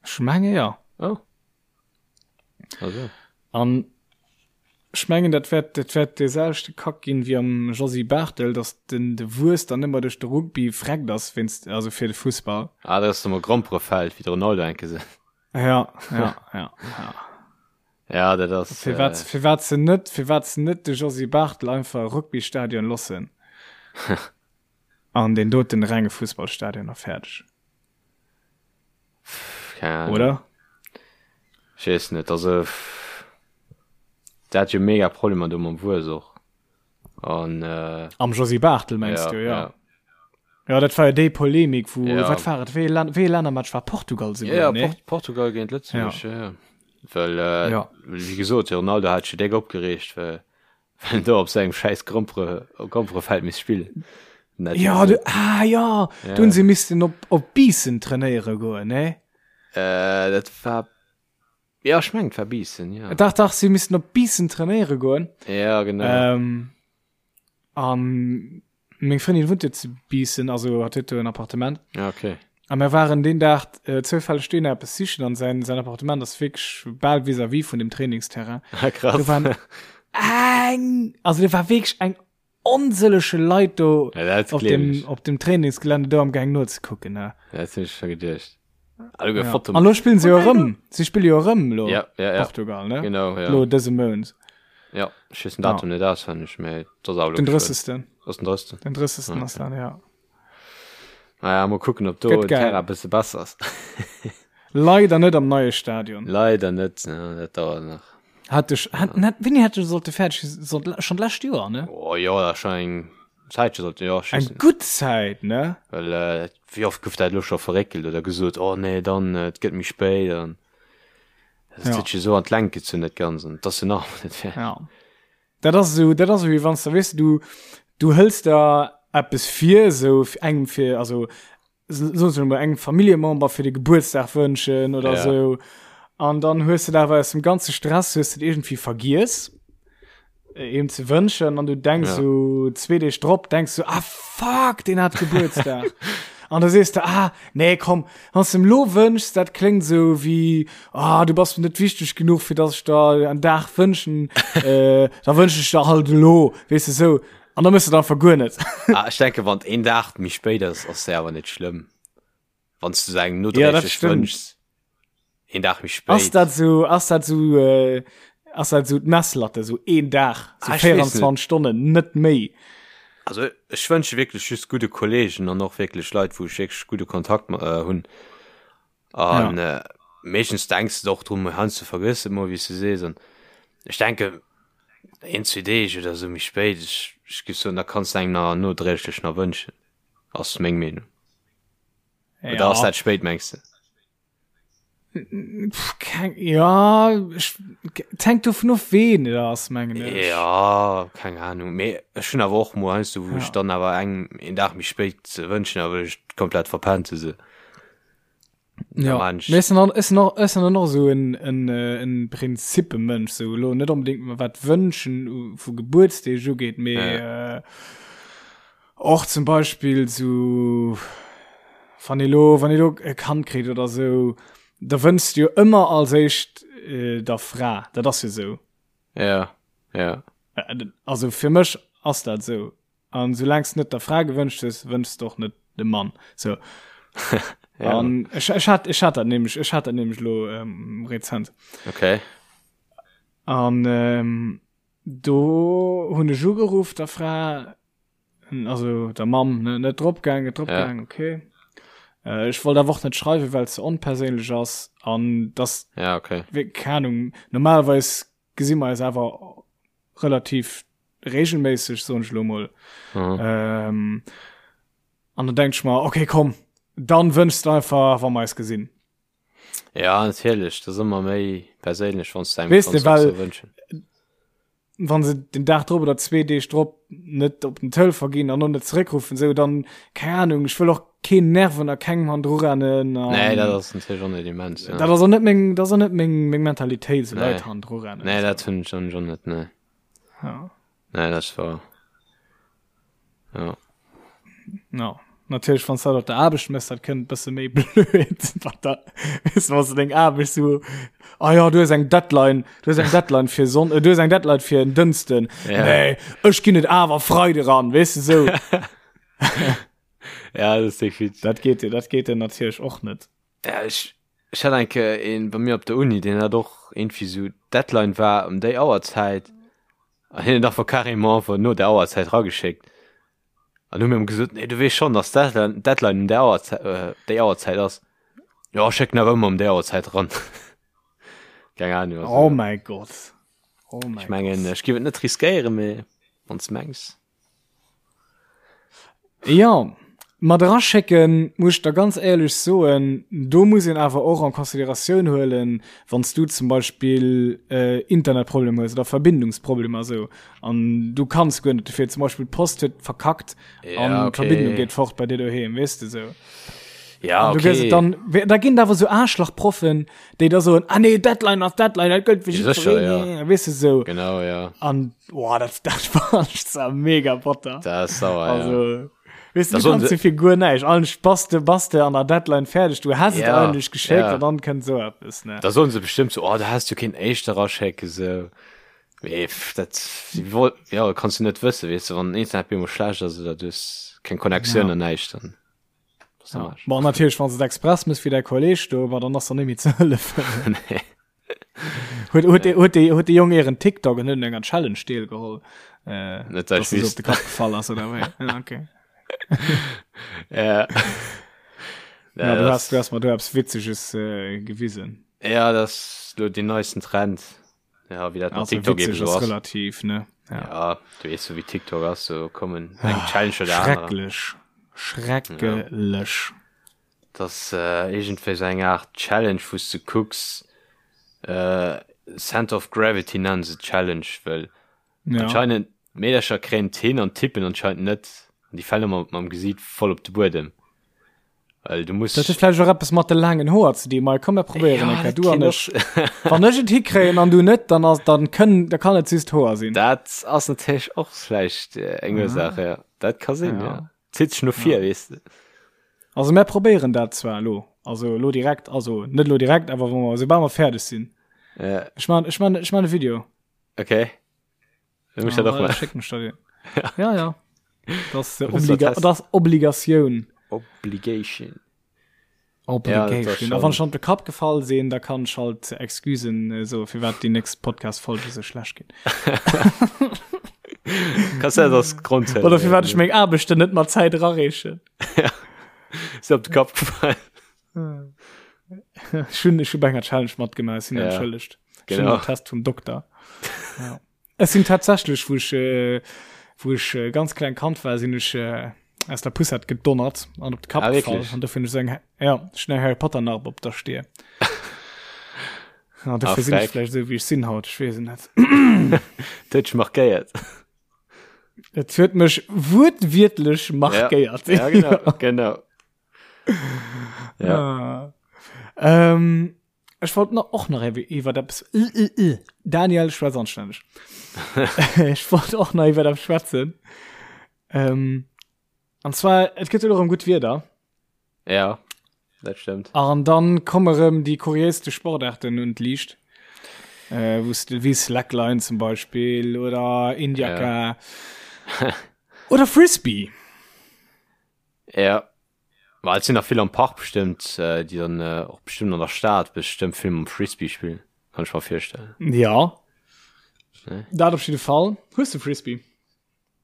Ech menge jo. Oh. Also. An ech mengen, dat wäert, dat wäert dee selwechte Kack ginn wéi am Josy Barthel, datt den, de Wues dann ëmmer duerch de Rugby vreckt ass wéinst, also fir de Fussball. Ah, dat ass nochmol Gromperefeld, wéi de Ronaldo enke se. Ja, ja, ja, ja. Ja, dat ass. Firwat, äh, firwat se net, firwat se net de Josy Barthel einfach e Rugbystadion loossen an deen doten renge Fussballstadion a fäerdeg. Keine Ahnung. Oder? Ech weess net, also der hat jo mega Problemer do mam Wues och. An äh, Am Josy Barthel mengst ja, du, ja. ja. Ja, dat war jo déi Polemik, wou, Ja. wat war et, wéi ee Län-, wéi ee Lännermatch war Portugal Ja, souguer, ja, nee? Port Portugal géint Lëtzebuerg, Ja. ja. ja. Well, äh, Ja. wéi gesot, de Ronaldo hat sech jo déck opgereegt, well well en do op sengem schäiss Grompere, Gromperefeld misst spillen. Dat Ja, du, ah ja, Ja. do hunn se missten op, op Biissen trainéiere goen, nee? Äh, dat war, ja, ech mengen, et war Biissen, ja. Dach, dach, si missten op Biissen trainéiere goen. Ja, genau. Ähm, an meng Frëndin wunnt jo zu Biissen, also hat huet do en Appartement. Ja, okay. A mir waren deen Dag äh, zoufälleg dohinner eppes sichen an säin, säin Appartement ass wierklech bal vis-à-vis vun dem Trainingsterrain. Ah, krass. Do waren eng, also do war wierklech eng onsëllege Leit do Ja, dat op gleewen dem, ech. op dem Trainingsgelände do am Gaang nozekucken. Ne? Ja, dat hunn ech scho geduecht. Ah, du Ja. Foto. An lo spillen se jo erëm. Si spille jo erëm lo Ja, ja, ja. Portugal, ne? Genau, ja. Lo dëse Mount. Ja, ech weess den Datum net auswenneg, mee dat ass awer lo Den geschwënn. 30. Ass den 30. Den 30. ass dat, ja. Naja, mol kucken, ob do Gëtt den geil. Terrain e bësse besser ass. Leider net am neie Stadion. Leider net, ja, dat dauert nach. Hat ech, hat, net, wéini hätt sollte fäerdeg sinn? Sollt schon d'lescht Joer, ne? Oh jo, dat ass schon eng Zäitche sollte, jo, ech Eng weess net. gutt Zäit, ne? Well, äh, wéi oft gouf dat elo scho verréckelt oder gesot, oh nee, dann, äh, et gëtt méi spéit an dat Ja. huet sech esou an d'Längt gezunn, dat Ganzt, an et ass jo nach ëmmer net fäerdeg. Ja. Dat ass esou, dat ass esou wéi wann s de, weess de, du, du hëls der eppes vir, esou engem fir, also soen se mol engem Familljemember fir de Gebuertsdag wënschen oder Ja. sou. An dann hues de awer aus dem ganze Stress hues de irgendwie vergiess äh, em ze wënschen an du denkst Ja. so zwee Deeg drop denkst du ah fuck den hat Gebuertsdag. an da sees du ah nee komm wann du em lo wënschs dat kléngt sou wéi ah du bass mir net wichteg genuch fir dass ech der en Dag wënschen äh, da wënsch ech der halt elo weess de sou. An da mëss du et einfach guer net. Ah, ech denke wann een Dag méi spéit ass, ass se awer net schlëmm. Wann s du se engem nodréiglech wënschs, een Dag méi spéit. Ass dat sou, ass dat sou, äh, ass dat sou d'Messlatte, sou een Dag, sou ah, 24 Stonnen, net méi? Also ech wënsche wierklech just gudde Kollegen an och wierklech Leit, wou ech wierklech gudde Kontakt äh, hunn. An ja. äh, meeschtens denks du och drum, heiansdo vergëss et mol, wéi s du sees. An ech denke een, zwee Deeg oder sou méi spéit, ech, ech géif soen, da kanns du engem nach nodréiglech nach wënschen. Ass meng Meenung. Ja. Oder ass dat spéit, mengs du? Keng, ja, ech, et hänkt dovun of, ween et ass, mengen ech. Ja, keng Ahnung. Mee ech hunn awer och mol heiansdo, wou ech dann awer engem een Dag méi spéit wënschen, awer ech et komplett verpennt hu se. Ja, mee ech sinn och, ech sinn och, ech sinn dann och esou en, en, en Prinzippemensch, sou elo net onbedéngt wat wënschen vu Gebuertsdeeg ugeet, mee ja. Och zum Beispill sou, wann ee lo, wann ee lo e Kand kritt oder sou, da wënschs du jo ëmmer als éischt der Fra, dat ass jo sou. Ja, ja. Also fir mech ass dat sou. An soulaang s de net der Fra gewënscht hues, wënschs de och net dem Mann. Sou. Ja. An ech, ech hat, ech hat dat nämlech, ech hat dat nämlech lo ähm, rezent. Okay. An ähm, Do hunn ech ugeruff der Fra, also der Mamm, ne, net drop gaang, net drop ja. gaang, okay. Äh, ech wollt awer och net schreiwen, well ze onperséinlech ass an das ja, okay. keine Ahnung, normalerweis gesi mer eis awer relativ regelméisseg, soen ech lo mol. Mhm. Ähm, an dann denk ich mer, okay, komm, dann wënschst du einfach, wa mer eis gesinn. Ja natierlech, dat ass ëmmer méi perséinlech wann s de engem Weess de, well wënschen. Wann se den Dag drop oder zwee Deeg drop net op den Telefon ginn an och net zeréckruffen, sou dann, keng Ahnung, ech wëll och keen nerven a kengem hannendru rennen an. Nee, dat ass natierlech och net immens, ja. Dat ass och net meng, dat ass och net meng, meng Mentalitéit, sou Leit hannendru rennen. Nee, dat hunn ech och net, nee. Ja. Nee, dat ass wahr. Ja. No. Natierlech wann dat op der Aarbecht mëss, dat kënnt bësse méi blöd wat da weess du, wann deng Aarbecht so ah ja du hues eng Deadline, du hues eng Deadline fir Sonn äh, du hues eng Deadline fir en Dënsten. Ja. Nee, ech ginn et awer Freide ran, weess du sou. Ja, dat ass definitiv. Dat geet dat geet dir natierlech och net. Ja, ech, ech hat eng Kéier een bei mir op der Uni, deen hat och irgendwie sou d'Deadline war ëm déi Auerzäit an hien huet einfach carrément einfach no der Auerzäit rageschéckt. An hu mir em gesot, nee du weess schonn, dass d'Deadline, d'Deadline ëm där Auerzäit, äh, déi Auerzäit ass. Jo, ech schécken awer ëmmer ëm déi Auerzäit ran. Keng Ahnung, also. Oh mäi Gott. Oh mäi Ech mengen, ech géif et net riskéieren, mee wann s de mengs. Jo, mat eraschécken, muss ech der ganz éierlech soen, do muss een awer och en Consideratioun huelen, wann s du zum Beispill Internetproblemer hues oder Verbindungsproblemer esou an du kanns guer net dofir, zum Beispill d'Post huet verkackt an d'Verbindung geet fort bei dir doheem, weess de esou. Ja, okay. Du gëss et dann, da ginn et awer esou Aarschlachproffen, déi da soen, ah nee, Deadline ass Deadline, dat gëllt fir jiddwereen, ja, ja. weess de esou. Genau, ja. An, boah, dat, dat fand ech zwar mega batter. Dat ass sauer, also, ja. Weess du, du kanns fir guer näischt. Eigentlech bass de, bass de an der Deadline fäerdeg, du häss et ja, eigentlech geschéckt ja. an dann kënnt esou eppes, ne. Da soen se bestimmt so, oh, da häss du kéint éischter eraschécken, sou. Mee dat, ja, kanns du net wëssen, weess de, wann den Internet bemol schlecht ass oder du hues keng Connectioun ja. an näischt, dann. Ja. Bon, natierlech wann se express muss fir der Kolleg do war dann ass der nemmi ze hëllefen. Nee. Huet huet de huet de huet de Jong ieren TikTok en huet enger Challenge deel geholl. Äh, Net dat ich op de Kapp gefall ass oder wéi. Ja, okay. Ja. Ja, du hast, du hast mal du eppes Witzeges äh, gewisen. Ja, das ist lo den neuesten Trend. Ja, wie dat mat TikTok eben so ass. Relativ, ne? Ja. ja, du weess so wéi TikTok ass, so kommen eng ah, Challenge oder anerer. Schrecklech. Schrecklech. Ja. Das äh, iergendwéi so eng Art Challenge, wou du kucks, äh, Center of Gravity nennen se Challenge, well ja. anscheinend Meedercher kréien hin an tippen anscheinend net. An déi falen ëmmer mam Gesiit voll op de Buedem. Well du muss Dat huet vläicht och eppes mat de laangen Hoer ze dinn. Mei, komm mir probéieren eng Kéier, du an ech. Wann ech et hikréien an du net, dann ass, dann kënn, da kann et just Hoer sinn. Dat ass natierlech och vläicht eng Ursaach, ja. Dat ka sinn, ja. Zitt sech no vir, weess de. Also mir probéieren dat zwar elo, also elo direkt, also net elo direkt, awer wa mer, soubal mer fäerdeg sinn. Ja. Ech man, ech man, ech man e Video. Okay. Dann muss ich dat och mal. Schick mech da den. Ja, ja. Das, äh, Obliga das Obligatioun. Obligation. Obligation. A wann ech an de Kapp gefall sinn, da kann ech halt Excusen äh, soe firwat déi nächst Podcast-Folge sou schlecht ginn. Kannst du das Grund Oder firwat ech meng Aarbechten net mat Zäit erareechen. Ja. Ist op de Kapp gefallen. Ech hunn ech hu bei enger Challenge matgemaach, ech sinn Ja. entschëllegt. Ech hunn Genau. den Test vum Dokter. Ja. Ech sinn tatsächlech, wou ech, äh, wou ech äh, ganz kleng Kand war, sinn ech äh, aus der Poussette gedonnert an op de Kapp Ah, gefall. wirklich? An dofir hunn ech sou eng, ja, ech hunn eng Harry Potter Narb op der Stier. Ja, dofir Ah, sinn ech freck. vläicht esou, wéi ech sinn haut, ech weess et net. Dat huet dech markéiert. Et huet mech wuertwiertlech markéiert. Ja, genau, genau. Ja. Ah. Ähm, Ech wollt nach och nach iwwer eppes Daniel schwätz anstänneg. Ech wollt och nach iwwer eppes schwätzen. Ähm, an zwar et gëtt elo erëm gutt Wieder. Ja, dat stëmmt. An dann komme rëm déi kuriéiste Sportarten un d'Liicht. Äh, wou s de wéi Slackline zum Beispill oder Indiaka Ja. oder Frisbee. Ja. Ma et sinn nach vill am Park bestëmmt, äh, déi dann äh, och bestëmmt an der Stad bestëmmt vill mam Frisbee spillen, kann ech mer virstellen. Ja. Ne? Dat op jidde Fall. Hues de Frisbee?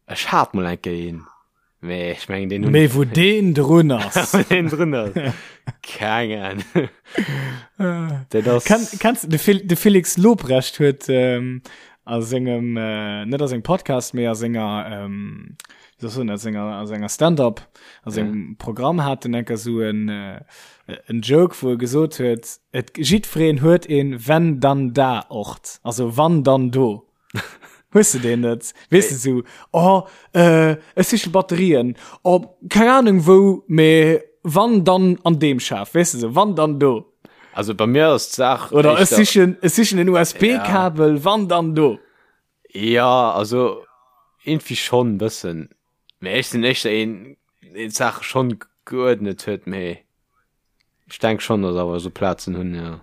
Ech hat mol eng Kéier een, mee ech mengen deen hunn Mee wou deen drun ass. Wou deen drun ass. Keng Ahnung. Dat ass Ken, kennst du, de, Fel, de Felix Lobrecht huet ähm, a sengem, äh, net a sengem Podcast, mee a senger, ähm, wéi soll ech soen, a senger, a senger Stand-up, a sengem ja. Programm hat en enker sou en, äh, en Joke, wou e gesot huet, et, jiddwereen huet een wenn dann da Ort, also wann dann do. Hues du deen net? Weess de sou, oh, äh, ech siche Batterien, oh, keng Ahnung wou, mee wann dann an deem Schaf, weess de sou, wann dann do. Also bei mir ass d'Saach Oder ech éischter sichen, ech sichen en USB-Kabel, ja. wann dann do. Ja, also irgendwie schon bëssen. Mee ech sinn éischter een, deen d'Saache schon geuerdnet huet, mee ech denk schon, dass awer esou Plazen hunn, ja.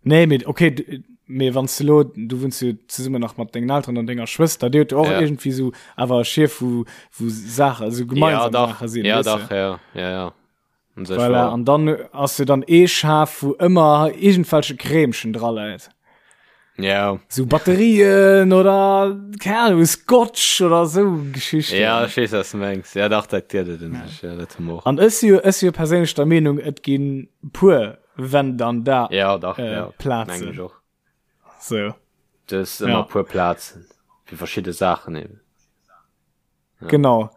Nee, mee okay, mee wann s du lo, du wunns jo zesummen nach mat dengen Elteren an denger Schwëster, dir hutt jo och Ja. irgendwie sou awer e Schief, wou, wou Saachen, esou Ja, gemeinsam dach, Saache sinn, ja, weess de? dach, ja, ja, ja. Un sech Voilà, war. an dann ass jo dann ee Schaf, wou ëmmer iergendwelche Krämchen dra läit. Ja. Sou Batterien oder, keng Ahnung, Scotch oder sou Geschichten. Ja, ech weess, was du mengs. Ja, dach, dat gëtt et un sech, ja, dat hu mer och. An ech si jo, ech si jo perséinlech der Meenung, et ginn puer wenn dann da Ja, dach, äh, ja, Plazen. mengen ech och. So. Du hues ëmmer Ja. puer Plazen fir verschidde Saachen eben. Ja. Genau.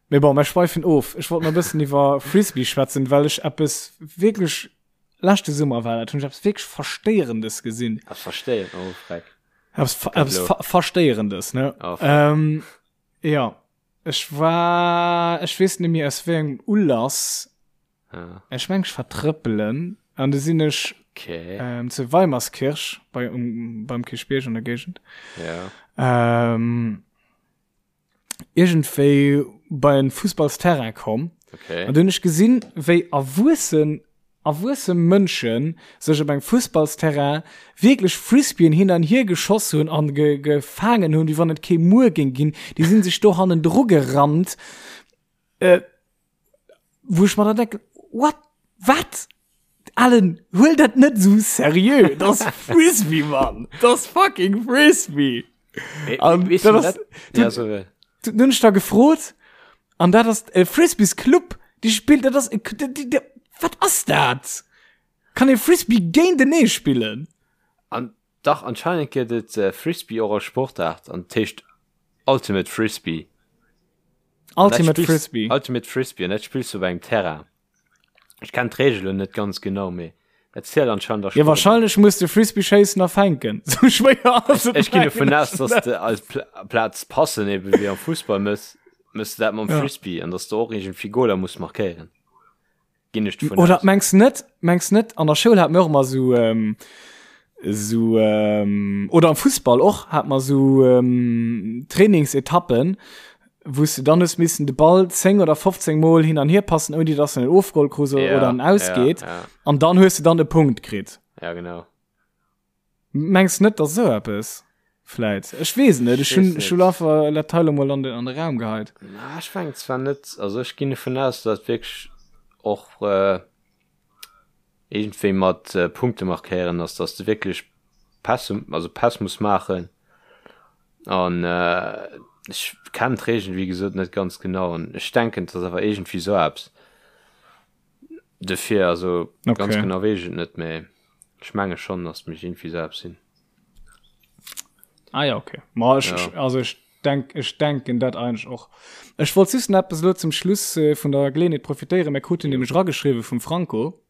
Mee bon, mer schweifen of. Ech wollt nach e bëssen iwwer Frisbee schwätzen, well ech eppes wierklech, leschte Summer war dat, hunn ech eppes wierklech Verstéierendes gesinn. Eppes Verstéieren, oh freck. Eppes, eppes ver Verstéierendes, ne? Oh, freck. Ähm, ja, ech war, ech weess net méi aus wéi engem Ulass, ja. ech meng ech war trëppelen an du sinn ech okay. ähm, zu Weimerskirch bei, um, beim Kierchbierg an der Géigend. Ja. Ähm, iergendwéi bei en Fussballsterrain komm. Okay. An du hunn ech gesinn, wéi erwuessen, erwuesse Mënschen sech op engem Fussballsterrain wierklech Frisbeeën hin an hier geschoss hunn an ge gefaangen hunn, wéi wann et kee Muer géing ginn. Déi sinn sech do hannendru gerannt. Äh, wou ech mer dann denken, what? Wat? Alan, huel dat net sou seriö. Dat ass Frisbee, Mann. Dat ass fucking Frisbee. An Wees dat du ass, dat? Ja, so, äh, du hunn ech da gefrot, an dat ass e Frisbees Club, déi spillt, dat ass, e- déi, déi, wat ass dat? Kann ee Frisbee géintenee spillen? An dach, anscheinend gëtt et äh, Frisbee och als Sportaart an et heescht Ultimate Frisbee. An dat Ultimate spills- Frisbee. Ultimate Frisbee an dat spills du op engem Terrain. Ech kenn d'Reegelen net ganz genau, mee dat zielt anscheinend als Ja, Sportaart. wahrscheinlech muss de Frisbee schéissen a fänken. Sou schwéier ass et Ech ginn dovun mengen aus, ech dass net. de als Pla Plaz passen, eben wéi am Fussball mëss, mëss de dat mam Ja. Frisbee an dass de och iergendwéi Goler muss markéieren. Ginn ech dovun Oder aus. mengs net, mengs net, an der Schoul hat mir och ëmmer sou, ähm, sou, ähm, oder am Fussball och, hat mer sou, ähm, Trainingsetappen, wou s de dann hues missen de Ball 10 oder 15 Mol hin an hier passen, ouni dass en en ofgeholl krus Ja, oder en ja, ausgeet. ja. An dann hues de dann e Punkt kritt. Ja, genau. Mengs net, dass esou eppes vläit? Ech weess et net. Ech Ech hunn weess ech hunn net. einfach dat Teil emol an den an de Raum geheit. Na, ech mengen zwar net, also ech ginn dovun aus, dass wierklech och äh, Iergendwéi mat Punkte markéieren ass, dass de wierklech Pässe, also Päss muss maachen. An ech kennen d'Reegelen, wéi gesot, net ganz genau. An ech denken, et ass awer iergendwéi esou eppes. Dofir, also okay. ganz genau weess ech et net, mä ech menge schonn, dass et mécht iergendwéi esou eppes sinn. Ah ja, okay. Ma ech, ja. also ech denk, ech denken dat eigentlech och. Ech wollt just nach eppes elo zum Schluss äh, vun der Geleeënheet profitéieren. Mir kruten nämlech rageschriwwe vum Franco.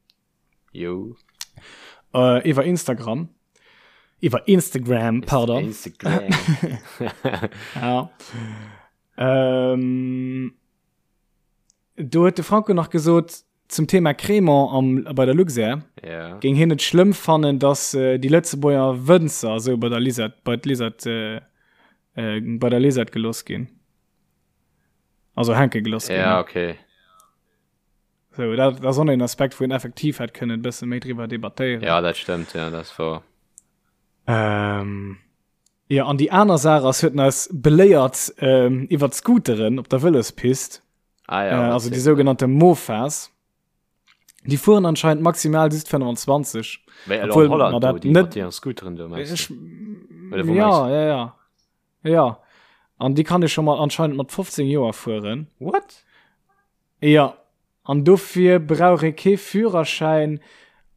Jo. Äh, iwwer Instagram. Iwwer Instagram, pardon. Instagram. ja. Ähm, Do huet de Franco nach gesot, zum Thema Crémant am, bei der Luxair, ja. géing hien et schlëmm fannen, dass äh, déi Lëtzebuerger Wënzer esou bei der Lisette, bei d'Lisette, äh, äh, bei der Lisette geloss ginn. Also hänke geloss ginn. Ja, okay. So, dat, dat ass och en Aspekt, wou een effektiv hätt kënnen e bësse méi driwwer debattéieren. Ja, dat stëmmt, ja, dat ass wouer. Ähm, Jo, an déi aner Saach ass, huet en eis beléiert ähm, iwwer d'Scooteren op der Vëlospist. Ah, ja, äh, also déi sougenannte Mofas. Déi fueren anscheinend maximal just 25. Wéi Obwohl, Holland, ma dat net déi Scooteren do, meinst du? Oder wo ja, ja, ja. Ja. An déi kann ech schon mal anscheinend mat 15 Joer fueren. What? Jo, an dofir brauch ee kee Führerschäin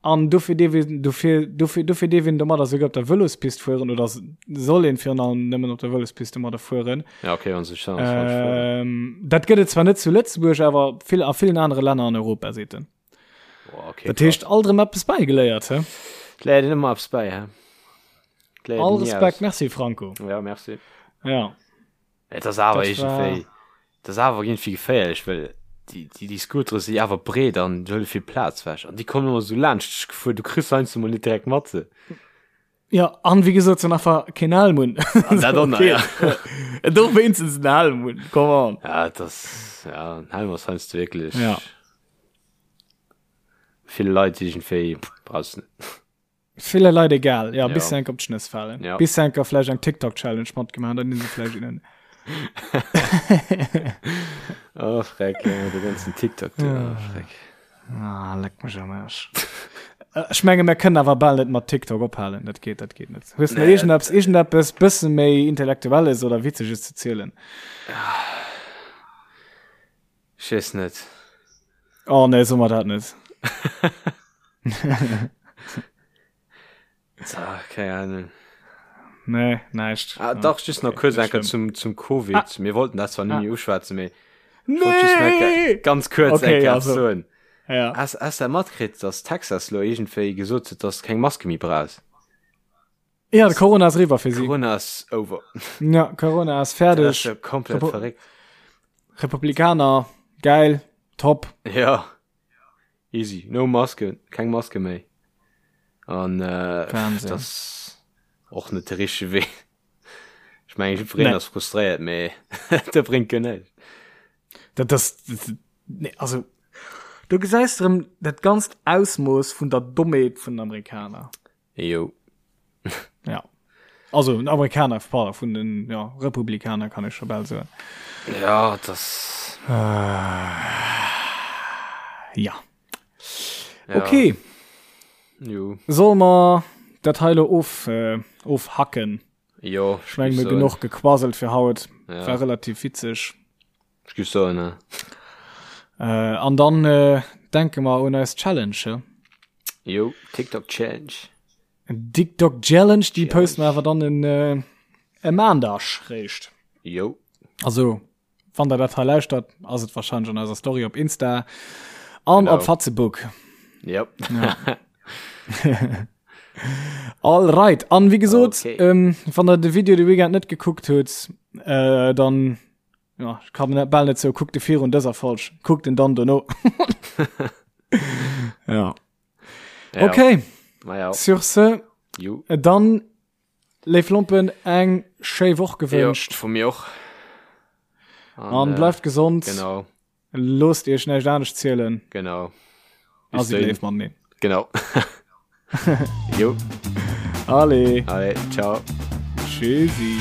an dofir dierf een, dofir, dofir, dofir dierf een domadder souguer op der Vëlospist fueren oder soll een virun allem nëmmen op der Vëlospist domadder fueren. Ja, okay, wann se sech dann falsch fueren. Ähm, dat gëtt et zwar net zu Lëtzebuerg, awer vill, a villen anere Länner an Europa, seet en. Boah, okay, Dat heescht, alt erëm eppes bäigeléiert, hä? Et léiert een ëmmer eppes bäi, hä? Et léiert All een ni Respekt, aus. merci Franco. Ja, merci. Ja. Et ass awer Dat war- iergendwéi, et ass awer iergendwéi geféierlech, well déi, déi, déi Scootere si awer breet an huele vill Plaz wech an déi kommen ëmmer esou laanscht dech gefuer, du kriss se heiansdo mol net direkt mat. Se. Ja, an wéi gesot, se hunn einfach keen Helm un. An dat och nach, ja. Do wéinstens en Helm un, come on. Ja, et ass, ja, en Helm ass heiansdo wierklech Ja. ville Leit iergendwéi, brauchs net. Ville Leit egal, ja, Ja. bis se enk op d'Schnëss falen. Ja. Bis se enker vläicht eng TikTok-Challenge matgemaach hunn, dann sinn se vläicht innen. Oh, Freck, ja, de ganzen TikTok, du, oh, Freck. Ah, leck mech am Arsch. Äh, Ech menge mir kënnen awer bal net mat TikTok ophalen, dat geet, dat geet net. Hues du Nee, iergendeppes, iergendeppes bësse méi Intellektuelles oder Witzeges ze zielen? Ech weess net. Oh nee, so mer dat net. Ah, keng Ahnung. Nee, näischt. Ah, dach, just nach kurz enker zum, zum Covid. Ah. Mir wollten dat zwar net Ah. méi uschwätzen, mee ich wollt just nach Nee! ganz kurz Okay, enker also. soen. Ja. Has, has dat matkritt, dass Texas lo iergendwéi gesot huet, dass keng Maske méi brauchs? Ja, de Corona ass eriwwer fir si. Corona ass over. Ja, Corona ass Dat fäerdeg. ass jo komplett Repu- verréckt. Republikaner, geil, top. Ja. Easy. No Maske, keng Maske méi. An äh, Wahnsinn. das ass och net de richtege Wee. Ech mengen, jiddwereen Nee. ass frustréiert, mee dat bréngt guer näischt. Dat das, das nee, also du gesäis erëm dat ganzt Ausmooss vun der Dommheet vun den Amerikaner. Jo. Ja. Also den Amerikaner, pardon, vun den ja, Republikaner kann ech scho bal soen. Ja, das. Äh, ja. Ja. Okay, Jo. soll mer dat hei lo of, äh, ofhacken? Jo, Ech meng, mir genuch gequasselt fir haut. Ja. War relativ witzeg. Ech géif soen, ne. Äh, an dann äh, denke mer un eis Challenge. He? Jo, TikTok Challenge. TikTok Challenge, déi posten mer awer dann en äh, e Maandag réischt. Jo. Also, wann der dat hei lauschtert, ass et wahrscheinlech an eiser Story op Insta an Genau. op Facebook. Yep. Ja. All right. An wie gesot, Okay. ähm, wann der de Video de Weekend net gekuckt huet, äh, dann ja, ich kann net bal net sou, kuckt de virun dëser Folg, kuckt en dann dono. ja. Ja. Okay, Ma ja. sur ce, Jo. dann léif Lompen eng schéi Woch Jo, gewënscht vu mir och. an äh, bleift gesond. Genau, Loosst iech näischt anescht zielen. genau. A Bis sidd dahin. léif mateneen. Genau. Jo. Allez. Allez, ciao. Tschüssi.